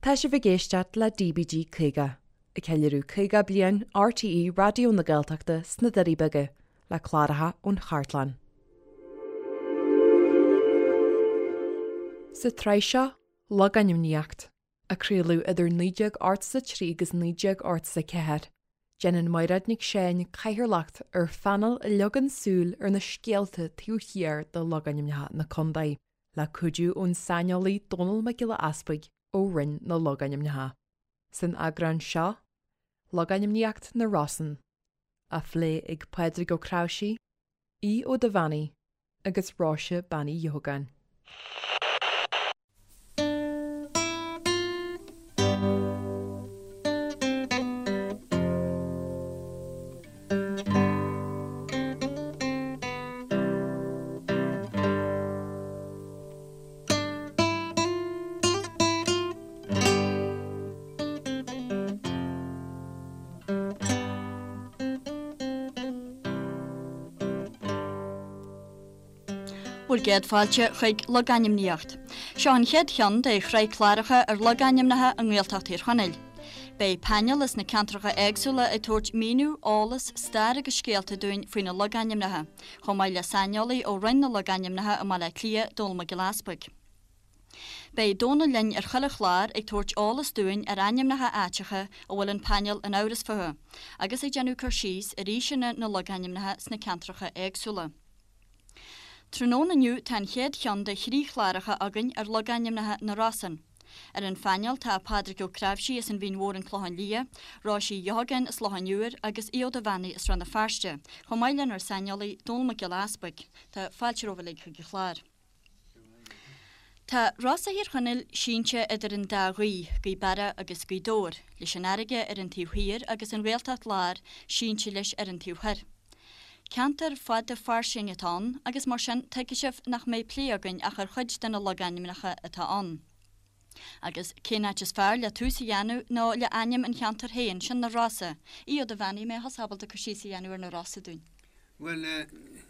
Tá sibh ag éisteacht le DBG 50, ag ceiliúradh 50 bliain RTÉ Raidió na Gaeltachta sna Doirí Beaga, le cláracha ón chartlann. Sa tsraith seo, Logainmníocht, a craoladh idir 1983 agus 1984, déanann Mairéad Nic Seáin cathaoirleacht ar phainéal a leagann súil ar na scéalta taobh thiar de logainmneacha na contae. le cuidiú ón saineolaí Dónall Mac Giolla Easpaig ó Roinn na Logainmneacha. San eagrán seo, Logainmníocht na Rosann, á phlé ag Pádraig Ó Cnáimhsí, Aodh Ó Duibheannaigh agus Róise Bean Uí Dheogáin. Bhur gcéad fáilte chuig Logainmníocht. Seo an chéad cheann de shraith cláracha ar logainmneacha i nGaeltacht Thír Chonaill. Beidh painéal as na ceantracha éagsúla ag tabhairt míniú, eolas, stair agus scéalta dúinn faoi na logainmneacha, chomh maith le saineolaí ó Roinn na Logainmneacha i mBaile Átha Cliath, Dónall Mac Giolla Easpaig. Beidh Dónall linn ar chuile chlár ag tabhairt eolas dúinn ar ainmneacha áiteacha a bhfuil an painéal in amhras fúthu, agus ag déanamh cur síos ar aoiseanna na logainmneacha sna ceantracha éagsúla. Tráthnóna inniu tá an chéad cheann de thrí chláracha againn ar logainmneacha na Rosann. Ar an phainéal tá Pádraig Ó Cnáimhsí as an Mhín Mhór An Clochán Liath, Róise Uí Dheogáin as Loch an Iúir agus Aodh Ó Duibheannaigh as Rann na Feirste, chomh maith lenár saineolaí Dónall Mac Giolla Easpaig. Tá fáilte romhaibh uilig chuig an chlár. Tá Rosa Thír Chonaill sínte idir an dá ghaoth, Gaoth Beara agus Gaoth Dobhair, leis an fharraige ar an taobh thiar agus an Ghaeltacht Láir sínte leis ar an taobh thoir. Ceantar fada fairsing atá ann agus mar sin tuigfidh sibh nach mbeidh plé againn ach ar chuid de na logainmneacha atá ann. Agus cén áit is fearr le tús a dhéanamh ná le ainm an cheantair féin, sin na Rosa. Aodh Ó Duibheannaigh, an mbeidh thusa ábalta cur síos a dhéanamh ar na Rosa dúinn? Bhuel,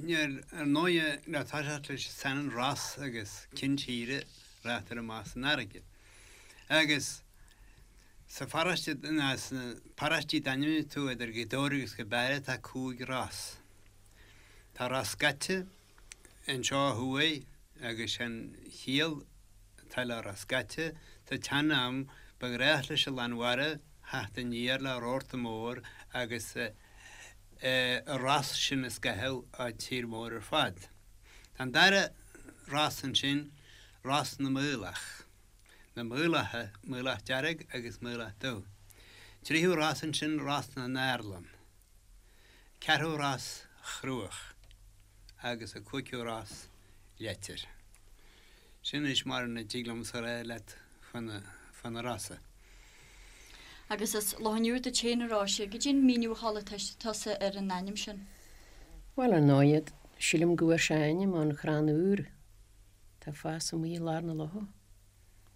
níl, ar ndóighe, le toiseacht leis an t-ainm Ros agus cinn tíre, rachaidh amach san fharraige. Agus sa pharóiste, ná sna paróistí d'ainmnigh tú idir Gaoth Dobhair agus Gaoth Beara tá 5 ros. Tá Ros Scaite anseo ó thuaidh agus sé'n chiall atá le Ros Scaite, sa tsean-am ba ghnách leis an lán mhara theacht aniar le rabharta mór agus an ros sin a scaitheadh an tír mór ar fad. Tá an dara ros ansin, Ros na Maolach. Na Maolacha, Maolach Dearg agus Maolach Dubh. Tríú ros ansin, Ros na nArlann. Ceathrú ros, Chruach. Agus an cúigiú ros, Leitir. Sin anois mar a dtig liomsa a rá leat fá na Rosa. Agus as Loch an Iúir duit féin, a Róise, goidé an míniú a chuala tusa ar an ainm sin? Bhuel, ar ndóighe, sílim go bhfuair sé a ainm ón chrann iúir atá ag fás amuigh i lár na locha.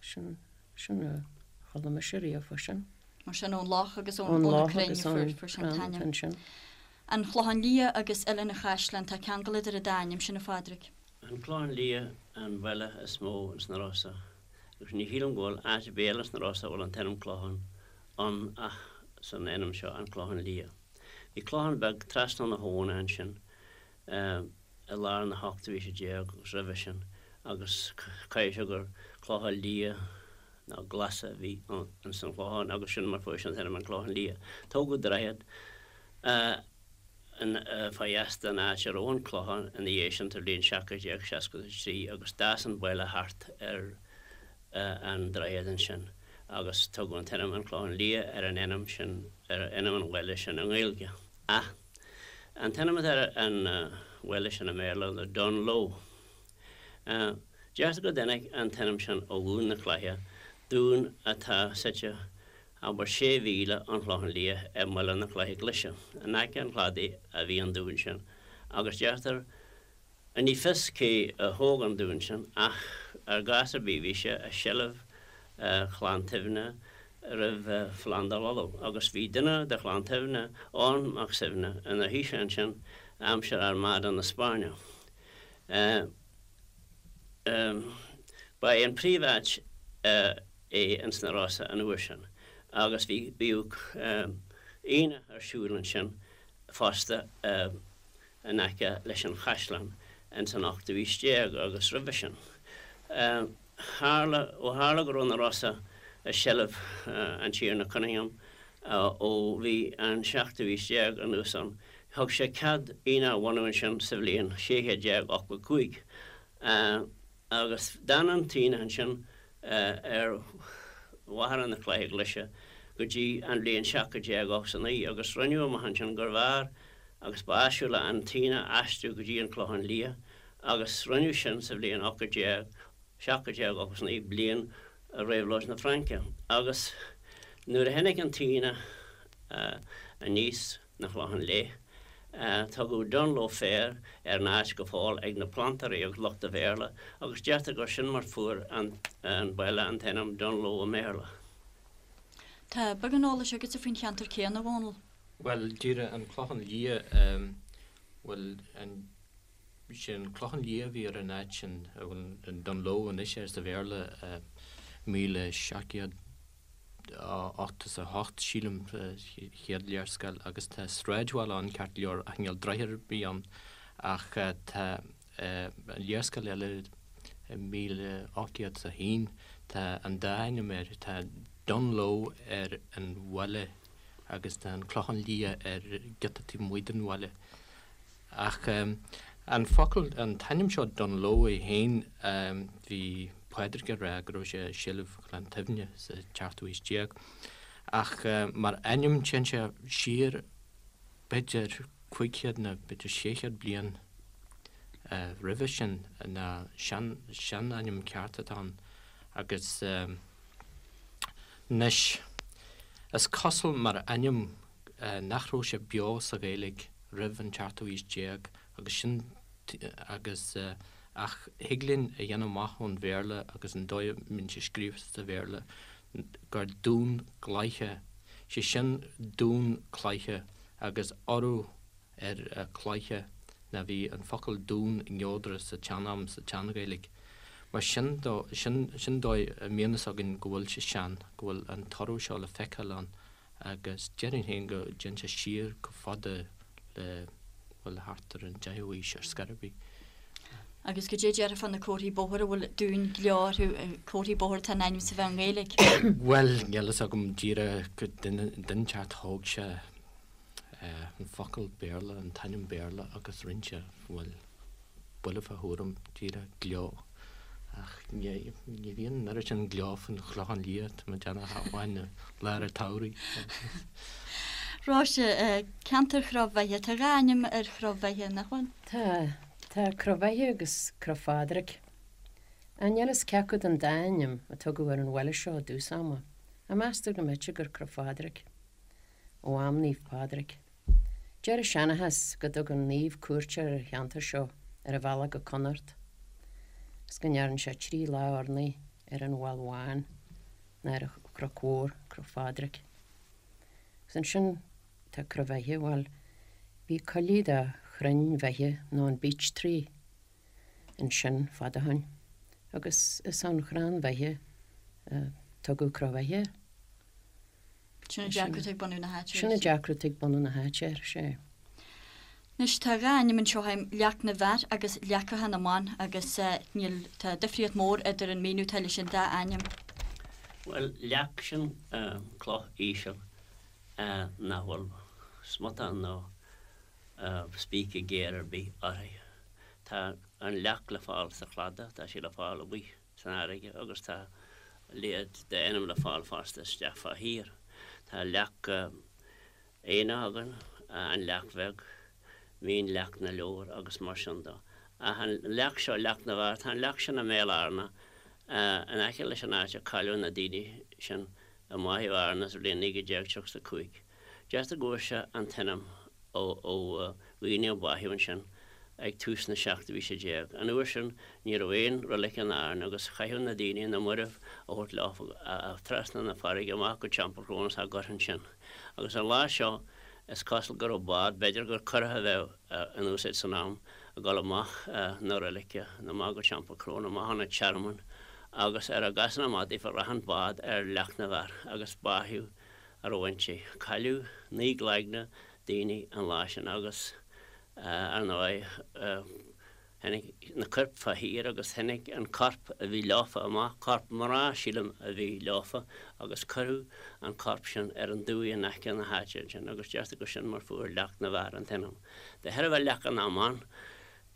Sin, sin a chuala mise riamh fá sin. Mar sin, ón loch agus ón, ó na crainn a fuair, fuair sé an t-ainm. ansin. An Clochán Liath agus Oileán an Chaisleáin, tá ceangal idir an dá ainm sin, a Phádraig. An Clochán Liath an baile is mó ins na Rosa agus ní shílim go bhfuil áit ar bith eile sna Rosa a bhfuil an t-ainm Clochán ann ach san ainm seo, An Clochán Liath. Bhí clochán beag trasna na habhna ansin i lár na hochtú haoise déag agus roimhe sin agus caithfidh sé gur clocha liath nó glasa a bhí ins an chlochán agus sin mar fuair sé an t-ainm An Clochán Liath. Tógadh droichead fá dheas den áit a raibh an clochán ina dhiaidh sin sa bhliain 1763 agus d'fhás an baile thart ar an droichead ansin agus tugadh an t-ainm An Clochán Liath ar an ainm sin, ar ainm an bhaile sin i nGaeilge. Ach an t-ainm atá ar an bhaile sin i mBéarla ná Dunloe. Deirtear go dtáinig an t-ainm sin ó Dhún na Cloiche, dún atá suite abair sé mhíle ón Chlochán Liath i mBaile na Cloiche Glaise. In aice an chladaigh a bhí an dún sin agus deirtear, ní fios cé a thóg an dún sin ach ar gcás ar bith bhí sé i seilbh Chlann tSuibhne roimh Phlandáil Uladh agus bhí duine de Chlann tSuibhne, Eoghan Mac Suibhne, ina thaoiseach ansin aimsir Armada na Spáinne. Ba é an príomháit a. é ins na Rosa an uair sin agus bhí, bhíodh aonach ar siúl ansin fosta in aice leis an chaisleán ins an ochtú aois déag agus roimhe sin. Tharla, ó tharla go raibh na Rosa i seilbh an Tiarna Cunningham ó bhí an seachtú aois déag anuas ann, thug sé cead aonach a bhunú ansin sa bhliain 1685. Agus d'fhan an t-aonach ansin ar Mhachaire na Cloiche Glaise go dtí an bhliain 1789, agus rinneadh amach ansin gurbh fhearr agus ba áisiúla an t-aonach a aistriú go dtí an Clochán Liath, agus rinneadh sin sa bhliain 1789, bliain Réabhlóid na Fraince. Agus nuair a tháinig an t-aonach aníos, 'na Chlochán Léith. Tugadh Dunloe Fair ar an áit go fóill ag na plantóirí agus lucht an Bhéarla agus deirtear gur sin mar fuair an baile an t-ainm Dunloe i mBéarla. Tá beagán eolais agatsa faoin cheantar céanna, a Dhónaill. Bhuel, díreach an Clochán Liath, bhuel, an, sé an Clochán Liath a bhí ar an áit sin, a bhfuil an Dunloe anois air sa Bhéarla, 1700. 88, sílim, chéad léarscáil agus tá sráidbhaile ann ceart go leor ach níl droichead ar bith ann ach tá léarscáil eile i 1801 tá an dá ainm air, tá Dunloe ar an bhaile agus tá an Clochán Liath ar giota taobh amuigh den bhaile. Ach an focal, an t-ainm seo Dunloe é féin, bhí Pádraig ag rá go raibh sé i seilbh Chlann tSuibhne sa tseachtú haois déag. Ach mar ainm téann sé siar b'fhéidir 500 nó b'fhéidir 600 bliain roimhe sin ná sean, seanainm ceart atá ann. Agus anois is cosúil mar ainm nach raibh sé beo sa Ghaeilge roimh an tseachtú haois déag agus sin agus ach thig linn a dhéanamh amach ón Bhéarla agus an dóigh a mbíonn sé scríofa sa Bhéarla gur Dún Gcloiche, sé sin dún cloiche agus urú ar cloiche ná bhí an focal dún neodrach sa tsean-am, sa tSean-Ghaeilge. Mar sin dó, sin sin dóigh a mbíonn fhios againn go bhfuil sé sean, go bhfuil an t-urú seo le feiceáil ann. Agus déarfainn féin go dtéann sé siar chomh fada le, bhuel, thart ar an deichiú haois ar scor ar bith. Agus goidé déarfá fá na comharthaí bóthair a bhfuil Dún Gleo orthu, comharthaí bóthair atá in ainm is a bheith i nGaeilge? Bhuel, níl fhios agam díreach go duine inteacht thóg sé an focal Béarla, an t-ainm Béarla agus rinne sé, bhuel, buille fá thuairim, díreach gleo. Ach ní bhíonn an oiread sin gleo faoin Chlochán Liath, tá mé ag déanamh ach amháin i lár an tsamhraidh. Róise, ceantar Chró Bheithe, tá dhá ainm ar Chró Bheithe, nach bhfuil? Tá. Tá Cró Bheithe agus Cró Phádraig. Ach níl fhios cé acu den dá ainm a tugadh ar an bhaile seo i dtús ama, ach meastar go mb'fhéidir gur Cró Phádraig. Ó am Naomh Pádraig. Deir an seanchas go dtug an naomh cuairt ar an cheantar seo ar a bhealach go Connacht agus go ndearn sé trí lá urnaí ar an Mheall Bhán ná ar an Chnoc Mhór, Cnoc Phádraig. Agus ansin tá Cró Bheithe, bhuel, bhí coillidh de chrainn bheithe nó an beech tree ansin fad ó shoin agus is ón chrann bheithe a tugadh Cró Bheithe air. Sin an deacracht ag bunú na háite. Sin an deacracht ag bunú na háite, ar sé. Anois tá dhá ainm anseo agam, Leac na bhFear agus Leacacha na mBan agus níl, tá difríocht mór idir an míniú atá leis an dá ainm. Bhuel, leac, sin cloch íseal nach bhfuil smután nó spíce géar ar bith uirthi. Tá an leac le fáil sa chladach, tá sí le fáil amuigh. san fharraige agus tá a leithéid d'ainm le fáil fosta isteach fá thír. Tá leac aonach againn, an leac bheag, Mín Leac na Leabhar agus mar sin de. Ach an leac seo, Leac na bhFear, tá an leac sin i mBéal Fhearna, in aice leis an áit a cailleadh na daoine sin i mbáitheadh Fhearna sa bhliain 1935. Deirtear go bhfuair sé an t-ainm ó dhaoine a báitheadh ansin ag tús na seachtú haoise déag. An uair sin ní raibh aon roilig in Árainn agus chaitheadh na daoine na mairbh a thabhairt leo trasna na farraige amach go Teampall Cróna is á gcur ansin. Agus an lá seo is cosúil go raibh bád, b'fhéidir gur curach a bheadh in úsáid san am, ag dul amach na roilige, amach go Teampall Cróna, amach chun an tearmainn. agus ar a gcasann amach daofa rachadh an bád ar Leac na bhFear agus báitheadh a raibh inti. Cailleadh 9 gcloigne daoine an lá sin agus ar ndóigh tháinig na coirp fá thír agus tháinig an corp a bhí leofa amach, corp mná sílim a bhí leofa agus cuireadh an corp sin ar an dumhaigh in aice na háite ansin agus deirtear gur sin mar fuair Leac na bhFear an t-ainm. De thairbhe Leaca na mBan,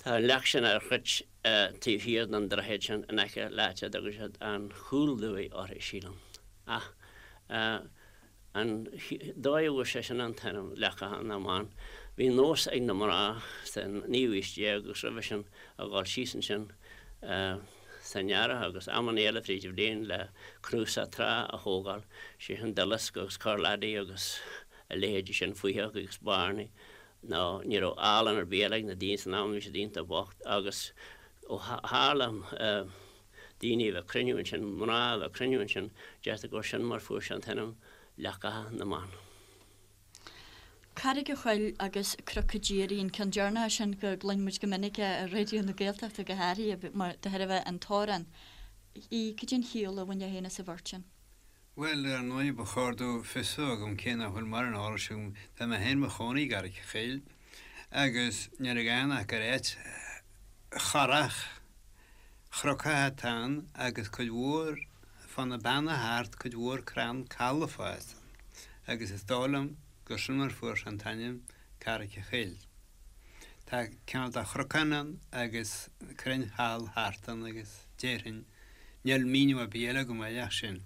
tá an leac sin ar chruit taobh thiar den droichead sin in aice le háit a dtugann siad an Chúl-Dumhaigh uirthi, sílim. Ach an dóigh a bhfuair sé sin an t-ainm, Leacacha na mBan, bhí nós ag na mná sa naoú haois déag agus roimhe sin a dhul síos ansin san earrach agus amanna eile fríd an bhliain le cnuasach trá a thógáil, sé sin duileasc agus corrlaidí agus a leithéidí sin, faoitheach agus bairnigh. nó ní raibh olann ar bith eile ag na daoine san am, bhí siad iontach bocht agus ó tharla daoine a bheith ag cruinniú ansin, mná a bheith ag cruinniú ansin, deirtear gur sin mar fuair sé an t-ainm Leacacha na mBan. Carraig a' Choill agus Cnoc a' Díoraí, an ceann deireanach sin go gcluin muid go minic é ar Raidió na Gaeltachta go háirithe mar de thairbhe an t-amhrán. Cad é an chiall a bhainfeá féin as an bheirt sin? Bhuel, ar ndóigh, ba chóir domh fios a bheith agam cé nach bhfuil mórán eolais agam. Tá mé féin i mo chónaí i gCarraig a' Choill agus níl againn ach gur áit chorrach chnocach atá ann agus cuid mhór fá na beanna thart, cuid mhór crann coll ag fás ann agus is dóigh liom gur sin mar fuair sé an t-ainm Carraig a' Choill. Tá cineál de chnocán ann agus crainn choll thart ann agus déarfainn, níl míniú ar bith eile agam air ach sin.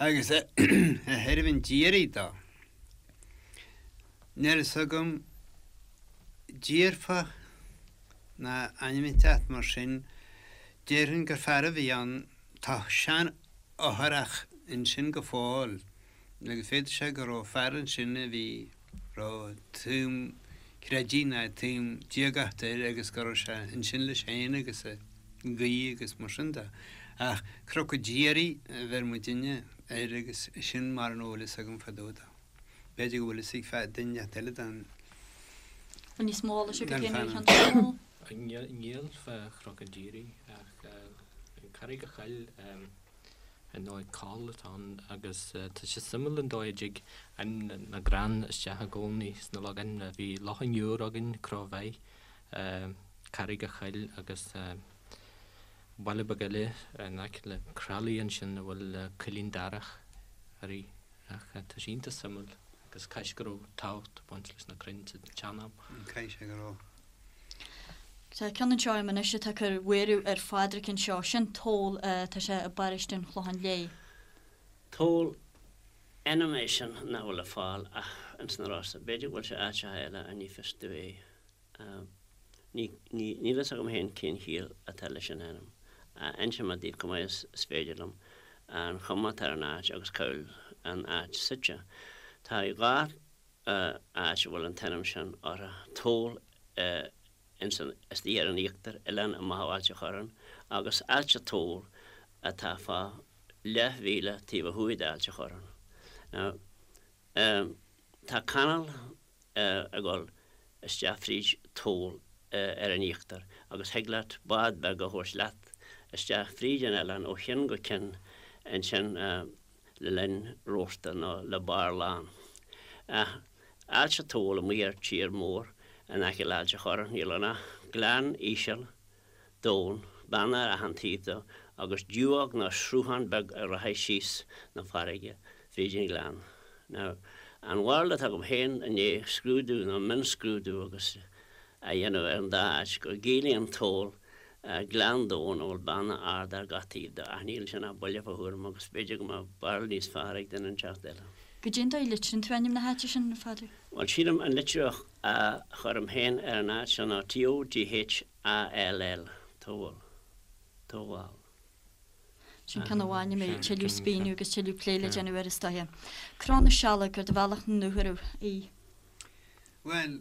Agus ó thaobh an Díoraí dó, níl fhios agam díorfach ná ainm inteacht mar sin, déarfainn gur fear a bhí ann, tá sean-fhothrach ansin go fóill agus féadfaidh sé go raibh fear ansin a bhí, raibh taom creidimh ná taom diagachta air agus go raibh sé ansin leis féin agus ag guí agus mar sin de. Ach Cnoc an Díoraí a bheir muidinne air agus sin mar an bhfuil fhios agam fá dtaobh dó. B'fhéidir go bhfuil fhios ag duine inteacht eile den Bhfuil níos mó eolais agat féin ar an cheann sin? Níl fá Chnoc an Díoraí ach Carraig a' Choill. Ar ndóigh coll atá ann agus tá sé suimiúil an dóigh a dtig ainm na gcrann isteach i gcónaí sna logainmneacha. Bhí Loch an Iúir againn, Cró Bheith, Carraig a' Choill agus baile beag eile in aice le Croithlí ansin a bhfuil Coillín Darach uirthi. Ach tá sé iontach suimiúil agus caithfidh sé go raibh tábhacht ag baint leis na crainn sa tsean-am. Caithfidh sé go raibh. Tá ceann anseo agam anois atá ag cur buaireamh ar Phádraic anseo. Sin Toll, tá sé i bparóiste an Chlocháin Léith. Toll, ainm é sin nach bhfuil le fáil ach ins na Rosa. B'fhéidir go bhfuil sé áiteacha eile ach ní fios domh é. Ní, ní, níl fhios agam féin cén chiall atá leis an ainm. Inseoidh mé daoibh chomh maith is féidir liom an chuma atá ar an áit agus cá bhfuil an áit suite. Tá 2 áit a bhfuil an t-ainm sin orthu, Toll ins an, istigh ar an íochtar, oileán amach ó Ailt a' Chorráin, agus Ailt a' Toll atá fá leathmhíle taobh ó thuaidh d'Ailt a' Chorráin. Now, tá canáil ag dul isteach fríd Toll ar an íochtar agus thig leat bád beag a thabhairt leat isteach fríd an oileán ó chionn go cionn ansin le linn rabharta nó le barr lán. Ach Ailt a' Toll amuigh ar tír mór in aice le Ailt a' Chorráin, níl ann ach gleann íseal domhain, beanna ar achan taobh dó, agus dumhóg nó sruthán beag a rachaidh síos 'na farraige fríd an ghleann. Now, an bharúil atá agam féin i ndiaidh scrúdú nó mionscrúdú agus a dhéanamh ar an dá áit, go gciallaíonn Toll gleann domhain a bhfuil beanna arda ar gach taobh dó, ach níl ansin ach buille fá thuairim agus b'fhéidir go mbeadh barúil níos fearr ag duine inteacht eile. Goidé an dóigh a litríonn tú ainm na háite sin, a Phádraig? Bhuel, sílim an litriú a chuirim féin ar an áit seo ná T-O-G-H A-L-L, Toghall. Toghall. Sin ceann amháin a mbeidh tuilleadh spíonadh agus tuilleadh plé le déanamh air is dóiche. Cró na Sealg ar do bhealach 'na nDúchoradh í. Bhuel,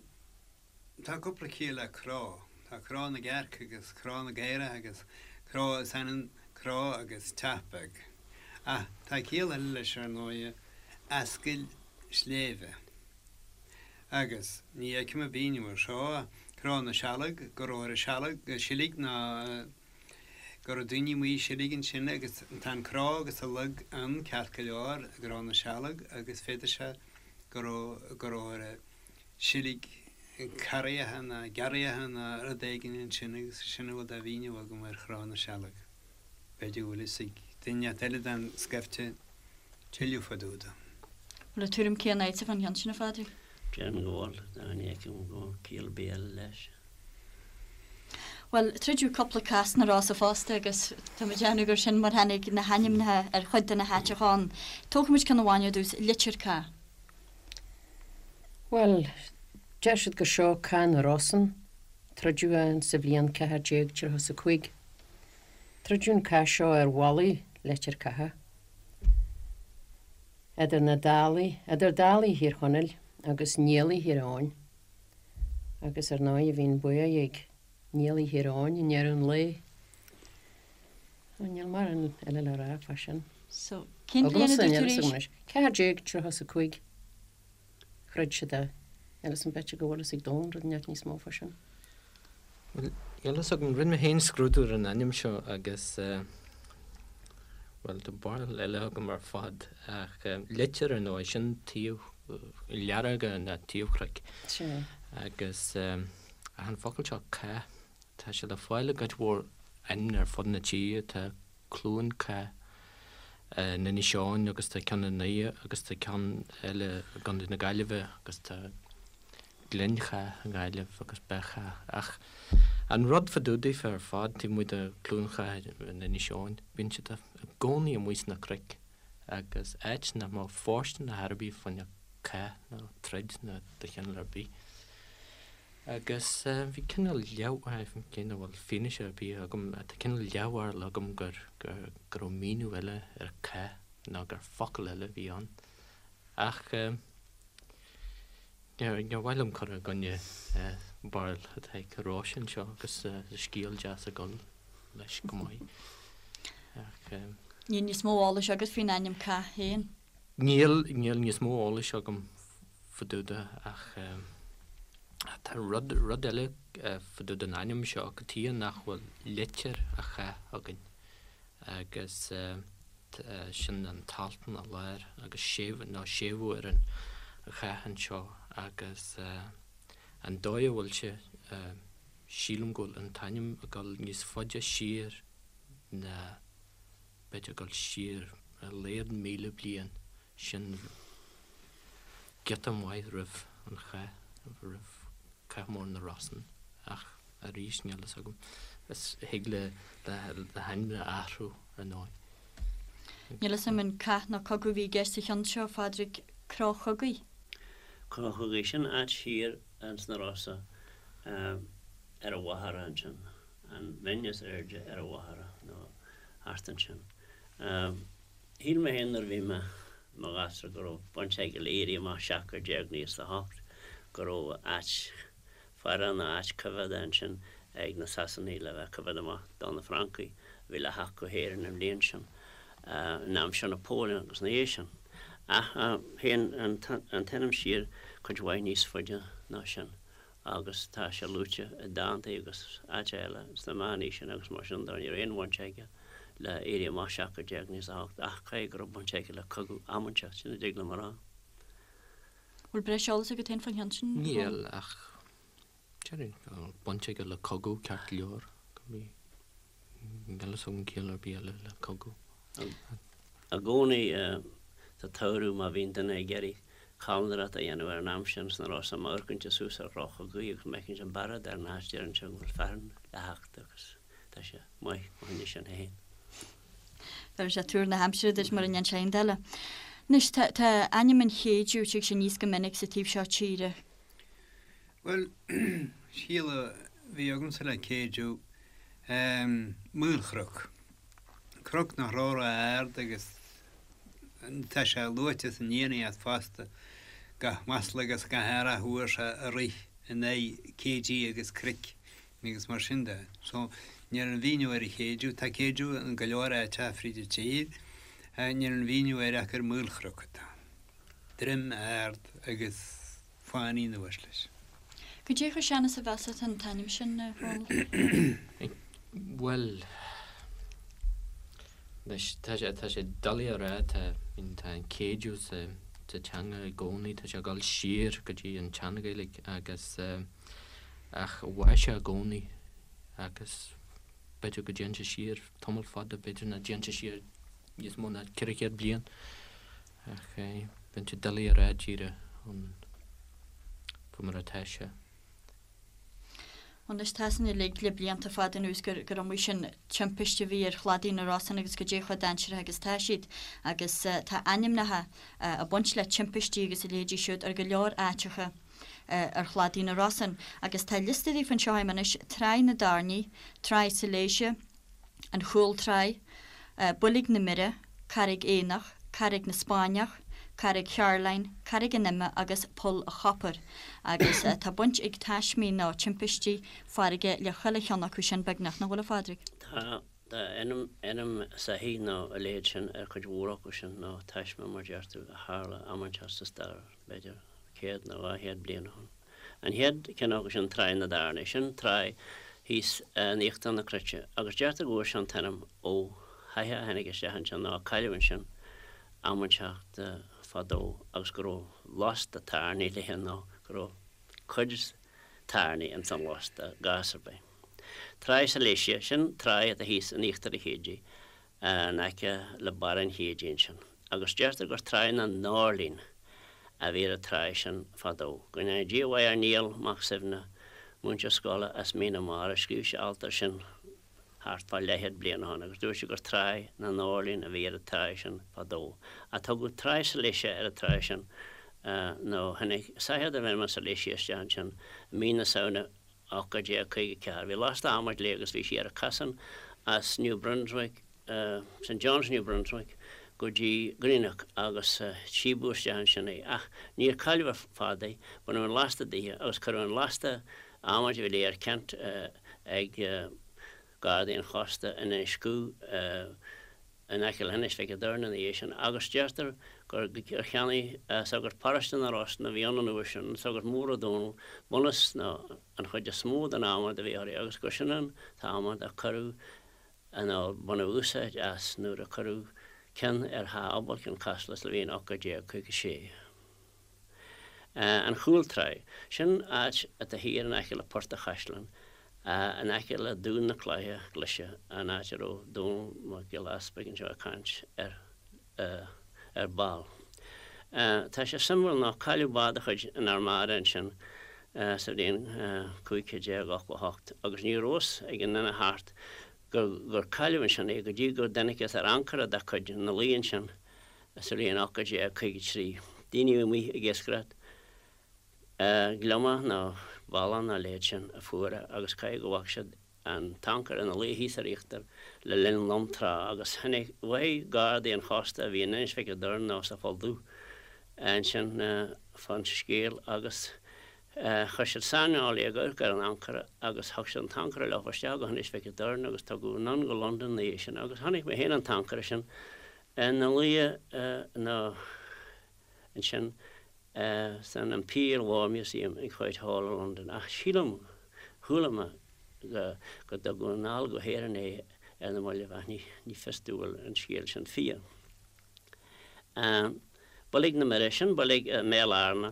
tá cúpla ciall le cró. Tá cró na gcearc agus cró na gcaorach agus cró is ionann cró agus teach beag. Ach tá ciall eile leis ar ndóighe, ascaill sléibhe. Agus ní fheicim an mhíniú air seo, cró na sealg, go raibh ar an sealg, silig ná. Go raibh daoine amuigh ag seilg ansin agus tá an cró agus an log ann ceart go leor, i gCró na Sealg agus féadfaidh sé go raibh, go raibh ar seilg carraigheacha ná gearraigheacha ná rud éigin ansin agus sin a bhfuil de mhíniú agam ar Chró na Sealg. B'fhéidir go bhfuil fhios ag duine inteacht eile den scaifte tuilleadh fá dtaobh de. Bhfuil an tuairim céanna agatsa fán cheann sin, a Phádraig? Déarfainn go bhfuil, ní fheicim go bhfuil ciall ar bith eile leis. Bhuel, troideadh cúpla cath sna Rosa fosta agus tá mé ag déanamh gur sin mar tháinig na hainmneacha ar chuid de na háiteacha ann. Tógfaimid ceann amháin ar dtús, Leitir Cath. Bhuel, deir siad gur seo Cath na Rosann. Troideadh é sa bhliain 1435. Troideadh an cath seo ar mhullaigh Leitir Catha, idir na Dálaigh, idir Dálaigh Thír Chonaill agus Niallaigh Thír Eoghain. Agus ar ndóigh bhí an bua ag Niallaigh Thír Eoghain i ndeireadh an lae. Ó níl mórán eile le rá fá sin. So, cén bhliain a dúirt tú arís? 1435 throid siad é. Níl fhios a'm b'fhéidir go bhfuil fhios ag Dónal rud inteacht níos mó fá sin. Bhuel, níl fhios agam, rinne mé féin scrúdú ar an ainm seo agus, bhuel, tá barúil eile agam ar fad ach leitir ar ndóigh, sin taobh learga ná taobh chnoic. Sea. Agus ach an focal seo cath, tá sé le fáil i gcuid mhór ainmneacha ar fud na tíre, tá Cluain Cath in Inis Eoghain agus tá ceann i nDoire agus tá ceann eile i gContae na Gaillimhe agus tá Gleann Chath i nGaillimh agus Beith Chath. Ach an rud fá dtaobh daofa ar fad, taobh amuigh de Cluain Chath in Inis Eoghain, bíonn siad i gcónaí amuigh sna cnoic agus áit nach mbeadh fóirsteanach ar bith fá choinne cath nó troid nó de chineál ar bith. Agus bhí cineál leath, cé nach bhfuil fianaise ar bith agam, tá cineál leathbharúil agam gur, gur, go raibh míniú eile ar cath nó gur focal eile a bhí ann. Ach. Níor mhaith liom cur i gcoinne barúil atá ag Róise anseo agus scéal deas ag dul leis go maith. Ach. Níl níos mó eolais agat faoin ainm Cath féin? Níl, níl níos mó eolais agam fá dtaobh de ach tá rud, rud eile fá dtaobh den ainm seo, cad chuige nach bhfuil Leitir a' Chath againn agus. sin an t-alt ina lár agus séimhiú, nó séimhiú ar an chath anseo agus an dóigh a bhfuil sé, sílim go bhfuil an t-ainm ag dul níos faide siar ná, b'fhéidir ag dul siar ar a laghad 1,000 bliain, sin giota maith roimh an chath, roimh Cath Mór na Rosann ach arís níl fhios agam, is thig le hainm a athrú ar ndóigh. Níl fhios agam an cath nó cogadh a bhí i gceist sa cheann seo, a Phádraig, Cró Chogaidh? Cró Chogaidh, sin áit thiar ins na Rosa ar an Mhachaire ansin, an bhinn is airde ar an Mhachaire nó thart ansin. Shíl mé féin nuair a bhí mé i mo ghasúr go raibh baint aige le Éirí Amach 1798, go raibh áit faire nó áit coimhéadta ansin ag na Sasanaigh le bheith ag coimhéad amach do na Francaigh a bhí le theacht go hÉirinn an bhliain sin, in aimsir Napoleon agus ina dhiaidh sin. Ach théann an t-ainm siar cuid mhaith níos faide ná sin agus tá sé luaite i dántaí agus áit eile sna meánaoiseanna agus mar sin de. Ní raibh aon bhaint aige le Éirí Amach 1798 ach caithfidh go raibh baint aige le cogadh am inteacht, sin a dtig liom a rá. Bhfuil breis eolais agat féin faoin cheann sin? Níl, ach déarfainn go bhfuil baint aige le cogadh ceart go leor. Níl fhios agam ciall ar bith eile le cogadh. I gcónaí sa tsamhradh má bhíonn duine ag iarraidh calendarát a dhéanamh ar an am sin sna Rosa, má amharcann tú suas ar Chró Chogaidh agus má fheiceann tú an bearád ar an áit deireann sé go bhfuil fearthainn le theacht agus tá sé maith fá choinne sin féin. Bheir sé tuar na haimsire duit mura ndéan sé aon eile. Anois, tá, tá ainm an Chéidiú, tig sé aníos go minic sa taobh seo tíre. Bhuel, ciall a bhí agamsa le Céidiú, maolchnoc. Cnoc nach raibh ró-ard agus tá sé luaite san Fhiannaíocht fosta, gach masla agus gach earra a fuair sé ag rith in aghaidh céidí agus cnoic. agus mar sin de. So, níl aon mhíniú ar an Chéidiú, tá Céidiú in go leor áiteacha fríd an tír, níl aon mhíniú air ach gur maolchnoc atá ann. Droim ard agus fánaí anuas leis. Cad é chomh sean is a mheasfá an t-ainm sin, a Dhónaill? Bhuel, Anois, tá sé, tá sé doiligh a rá, tá, I mean, tá an céideadh sa, sa teanga i gcónaí, tá sé ag dul siar go dtí an tSean-Ghaeilge agus eh, ach mhair sé i gcónaí agus b'fhéidir go dtéann sé siar tamall fada, b'fhéidir nach dtéann sé siar níos mó ná 400 bliain ach eh, bíonn sé doiligh a rá díreach an, faoi mar atá sé. Anois tá a fhios againn uilig le blianta fada anuas gur gur iomaí sin timpiste a bhí ar chladaí na Rosann agus goidé chomh dainséarach agus tá siad. Agus tá ainmneacha ag baint le timpistí agus a leithéidí siúd ar go leor áiteacha ar chladaí na Rosann. Agus tá liosta daofa anseo agam anois, Tráigh na dTairní, Tráigh Sailéise, An Chúl Tráigh, Boilg na Mire, Carraig Éanach, Carraig na Spáinneach, Carraig Chearláin, Carraig an Ime agus Poll a' Chopair. Agus tá baint ag taismí nó timpistí farraige le chuile cheann acu sin beagnach, nach bhfuil a Phádraig? Tá, tá ainm, ainm soithí nó a leithéid sin ar chuid mhór acu sin, nó taisme mar deir tú, a tharla am inteacht sa stair, b'fhéidir céad nó 200 bliain ó shin. An chéad cheann acu sin Tráigh na dTairní. Sin tráigh thíos in íochtar na cruite agus deirtear go bhfuair sé an t-ainm ó shoitheach a tháinig isteach ansin nó a cailleadh ansin am inteacht fadó agus go raibh lasta tairní léi nó go raibh cuid tairní ins an lasta i gcás ar bith. Tráigh Silesia, sin tráigh atá thíos in íochtar an Chéididh in aice le barr an Chéididh ansin, agus deirtear gur Tráigh na nDoirlín a bhí ar an tráigh sin fadó. Go ndéana Dia a mhaith ar Niall Mac Suibhne, múinteoir scoile as Mín na Mara, scríobh sé alt air sin thart fá leathchéad bliain ó shin agus dúirt sé gur Tráigh na nDoirlín a bhí ar an tráigh sin fadó. Ach tugadh Tráigh Silesia ar an tráigh sin nó tháinig soitheach darbh ainm an Silesia isteach ansin i mí na Samhna 1854. Bhí lasta adhmaid léi agus bhí sí ar a casán as New Brunswick, St. John's New Brunswick, go dtí Greenock agus síobadh isteach ansin í. Ach níor cailleadh ar fad í, baineadh an lasta dithe agus cuireadh an lasta adhmaid a bhí léi ar ceant ag Gardaí an Chósta in Inis Cú in aice le hInis Mhic an Doirn ina dhiaidh sin agus deirtear gur cheannaigh sagart paróiste na Rosann a bhí ann an uair sin, an Sagart Mór Ó Dónaill, bunús nó an chuid is mó den adhmad a bhí uirthi agus gur sin an t-adhmad a cuireadh nó baineadh úsáid as nuair a cuireadh ceann ar Theach Abhaill Chionn Caslach sa bhliain 1856. An Chúl Tráigh. Sin áit atá thiar in aice le Port a' Chaisleáin, in aice le Dún na Cloiche Glaise, an áit a raibh Dónall Mac Giolla Easpaig anseo ag caint ar ar ball. Tá sé suimiúil nó cailleadh bád de chuid an Armada ansin sa bhliain 1588 agus ní raibh fhios ag an duine thart gur cailleadh ansin é go dtí go dtángthas ar ancaire dá cuid ina luí ansin Sa bhliain 1853, daoine amuigh ag iascaireacht gliomach nó ballán nó a leithéid sin a fuair é agus caithfidh go bhfaca siad an t-ancaire ina luí thíos ar íochtar le linn lom trá agus tháinig, mhothaigh gardaí an chósta a bhí in Inis Mhic an Doirn nó sa Pholl Dubh ansin fán scéal agus chuir siad saineolaí ag amharc ar an ancaire agus thug siad an t-ancaire leo isteach go hInis Mhic an Doirn agus tugadh anonn go Londain ina dhiaidh sin agus chonaic mé féin an t-ancaire sin Ina luí nó ansin san Imperial War Museum ag Whitehall i Londain. Ach sílim, chuala mé go dtugadh anall go hÉirinn é ar na mallaibh ach ní fios domh an bhfuil an scéal sin fíor. Boilg na Mire, sin boilg i mBéal Fhearna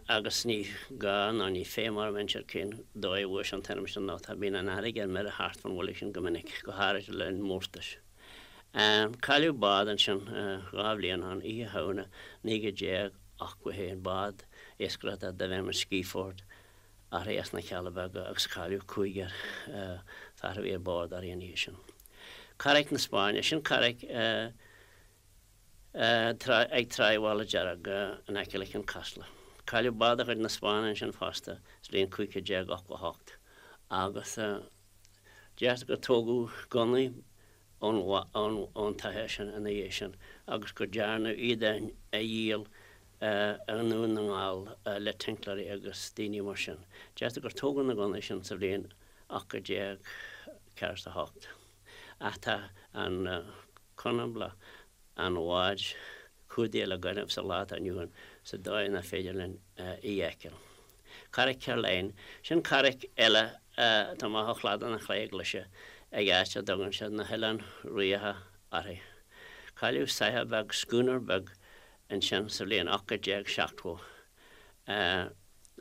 agus ní gá ná ní feidhm orm inse cén dóigh a bhfuair sé an t-ainm sin nó tá bíonn an fharraige ar mire thart fán bhoilg sin go minic, go háirid le linn mórtais. Cailleadh bád ansin 2 bhliain ó shin, Oíche Shamhna 1981, bád iascaireachta darbh ainm an Skieford, uirthi as na Cealla Beaga agus cailleadh cúigear fear a bhí ar bord uirthi an oíche sin. Carraic na Spáinne, sin carraic ag Tráigh Mhála Dearg in aice le Cionn Caslach. Cailleadh bád de chuid na Spáinne ansin fosta sa bhliain 1588 agus Deirtear gur tógadh gunnaí ón tsoitheach sin ina dhiaidh sin agus go dearnadh iad a dhíol i nDún na nGall le tincléirí agus daoine mar sin. Deirtear gur tógadh na gunnaí sin sa bhliain 1848. Ach tá an conablach an bháid cumhdaithe le gaineamh sa lá atá inniu ann sa dóigh nach féidir linn í a fheiceáil. Carraic Caroline, sin carraic eile atá amach ó chladach na Cloiche Glaise ag áit a dtugann siad na hOileáin Riabhacha. uirthi. Cailleadh soitheach beag, schooner beag, ansin sa bhliain 1870 le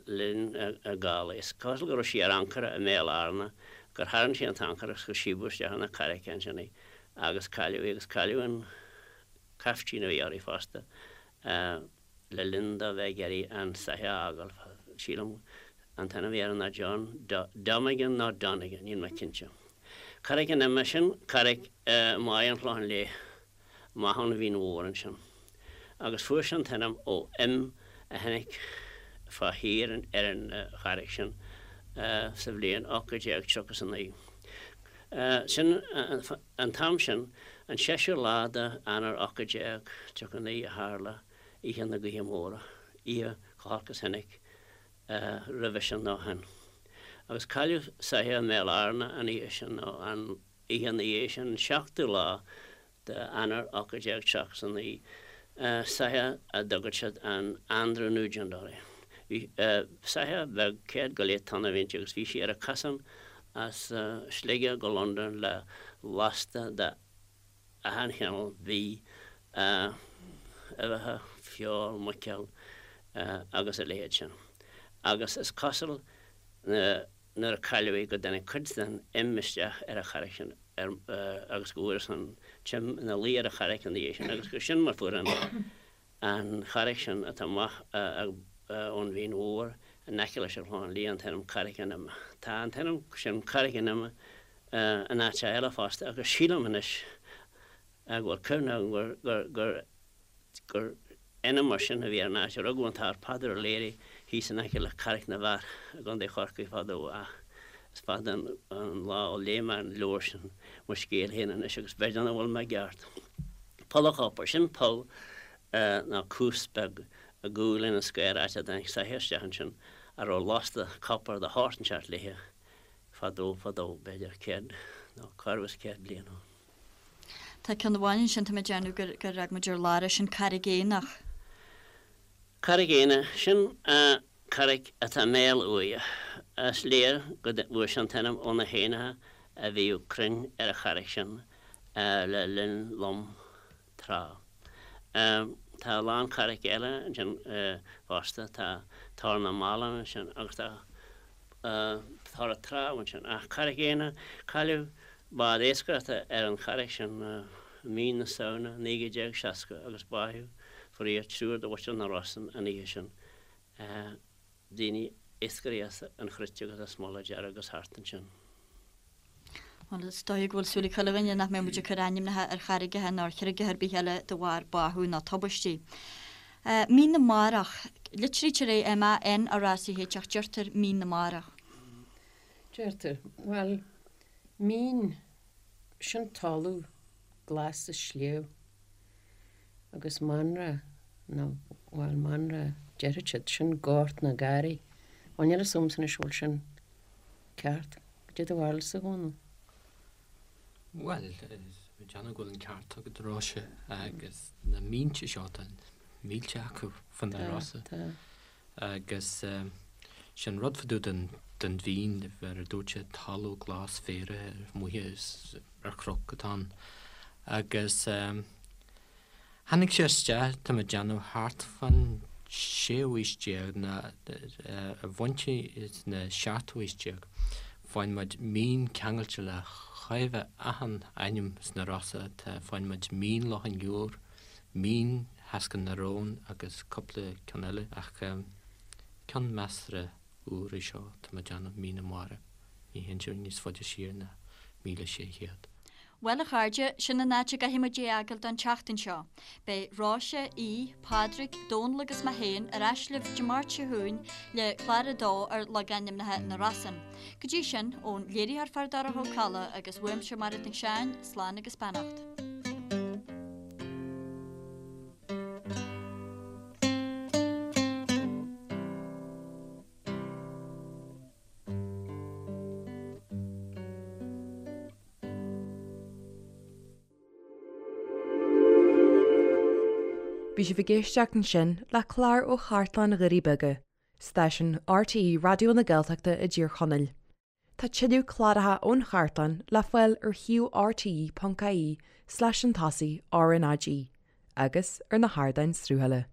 linn gála. Is cosúil go raibh sí ar ancaire i mBéal Fhearna, gur tharraing sí an t-ancaire agus gur síobadh isteach chun na carraice ansin í agus cailleadh í agus cailleadh an caiftín a bhí uirthi fosta le linn dó bheith ag iarraidh an soitheach a fhágáil. Sílim an t-ainm a bhí air ná John Domigan nó Donegan, níl mé cinnte. Carraig an Ime, sin carraig i mBaile an Chlocháin Léith, amach ón Mhín Mhór ansin. Agus fuair sé an t-ainm ó im a tháinig fá thír ar an charraig sin sa bhliain 1839. Sin an t-am sin, an seisiú lá d'Eanáir 1839 a tharla Oíche na Gaoithe Móire, oíche chomh holc is tháinig roimhe sin nó ó shin. Agus cailleadh soitheach i mBéal Fhearna an oíche sin, nó an oíche ina dhiaidh sin, an seachtú lá d'Eanáir 1839, soitheach a dtugadh siad an Andrew Nugent uirthi. Bhí soitheach beag, céad go leith tonna a bhí inti agus bhí sí ar a cosán as Sligeach go Londain le lasta de achan chineál bídh, uibheacha, feoil, muiceoil agus a leithéid sin. Agus is cosúil nuair a cailleadh í go dtáinig cuid den im isteach ar an charraig sin agus go bhfuarthas an t-im ina luí ar an charraig ina dhiaidh sin agus gur sin mar fuair an an charraig sin atá amach ón Mhín Mhór in aice leis an Chlochán Liath an t-ainm Carraig an Ime. Tá an t-ainm sin Carraig an Ime in áiteacha eile fosta agus sílim anois go bhfuil cuimhne agam gur gur gur ainm mar sin a bhí ar an áit a rugadh an tAthair Peadar O'Leary thíos in aice le Carraig na bhFear i gContae Chorcaí fadó ach is fada an lá ó léigh mé an leabhar sin mo scéal féin anois agus b'fhéidir nach bhfuil mé i gceart. Poll an Chopair, sin poll nó cuas beag i gcúl Inis Caorach áit a dtáinig soitheach isteach ansin a raibh lasta copair de shórt inteacht léithe fadó fadó, b'fhéidir 100 nó corradh is 100 bliain ó shin. Tá ceann amháin ansin, tá mé ag déanamh gur gur fhág muid ar lár é, sin Carraig Éanach. Carraig Éanna, sin carraig atá i mbéal uaighe. Is léir go bhfuair sé an t-ainm ó na héanacha a bhíodh cruinn ar an charraig sin le linn lom tráth. Tá a lán carraig eile ansin fosta, tá Tor na mBallán ansin agus tá Tor an Trá ansin. Ach Carraig Éanna, cailleadh bád iascaireachta ar an charraig sin i mí na Samhna 1960 agus báitheadh faraor triúr de mhuintir na Rosann an oíche sin. Daoine, iascairí as an Chruit agus as Mullach Dearg agus thart ansin. Bhuel, is dóigh go bhfuil súil ag chuile dhuine nach mbeidh muid ag cur ainmneacha ar charraigeacha ná ar chreaga ar bith eile de bharr báthadh ná tubaistí. Mín na Marach. Litrítear é M-A-N-R-A-C-H ach deirtear Mín na Marach. Deirtear. Bhuel, mín, sin talamh glas sa sliabh agus Manra, nó, bhuel, Manra, déarfadh siad, sin gort nó garraí. Bhuel, níl a fhios agamsa anois an bhfuil sin ceart. Cad é do bharúilsa, a Dhónaill? Bhuel, déanaim go bhfuil an ceart agat, a Róise, agus na mínte seo, tá mílte acu fá na Rosa. Tá, tá. Agus sin rud fá dtaobh den, den mhín, mar a dúirt sé, talamh glas féaraithe amuigh is ar chnoc atá ann. Agus Tháinig sé isteach, tá mé ag déanamh, thart fán séú haois déag, nó i bpointí sna seachtú haois déag. Faigheann muid mín ceangailte le chóir a bheith achan ainm sna Rosa, tá, faigheann muid Mín Loch an Iúir, Mín Theaschair na Rón agus cúpla ceann eile, ach ceann measartha úr é seo, tá mé ag déanamh, Mín na Mara. Ní théann sé níos faide siar ná 1600. Bhuel, a chairde, sin an áit a gcaithfidh muid é a fhágáil don tseachtain seo. Beidh Róise, Aodh, Pádraig, Dónal agus mé féin ar ais libh Dé Máirt seo chugainn le clár a dó ar logainmneacha na Rosann. Go dtí sin, ón léiritheoir Feardorcha Ó Cadhla agus uaimse Mairéad Nic Seáin, slán agus beannacht. Bhí sibh ag éisteacht ansin le clár ó Chartlann Dhoirí Beaga, stáisiún RTÉ Raidió na Gaeltachta i dTír Chonaill. Tá tuilleadh cláracha ón chartlann le fáil ar shuíomh rte.ie slash chun tosaigh RnaG agus ar na hardáin sruthaithe.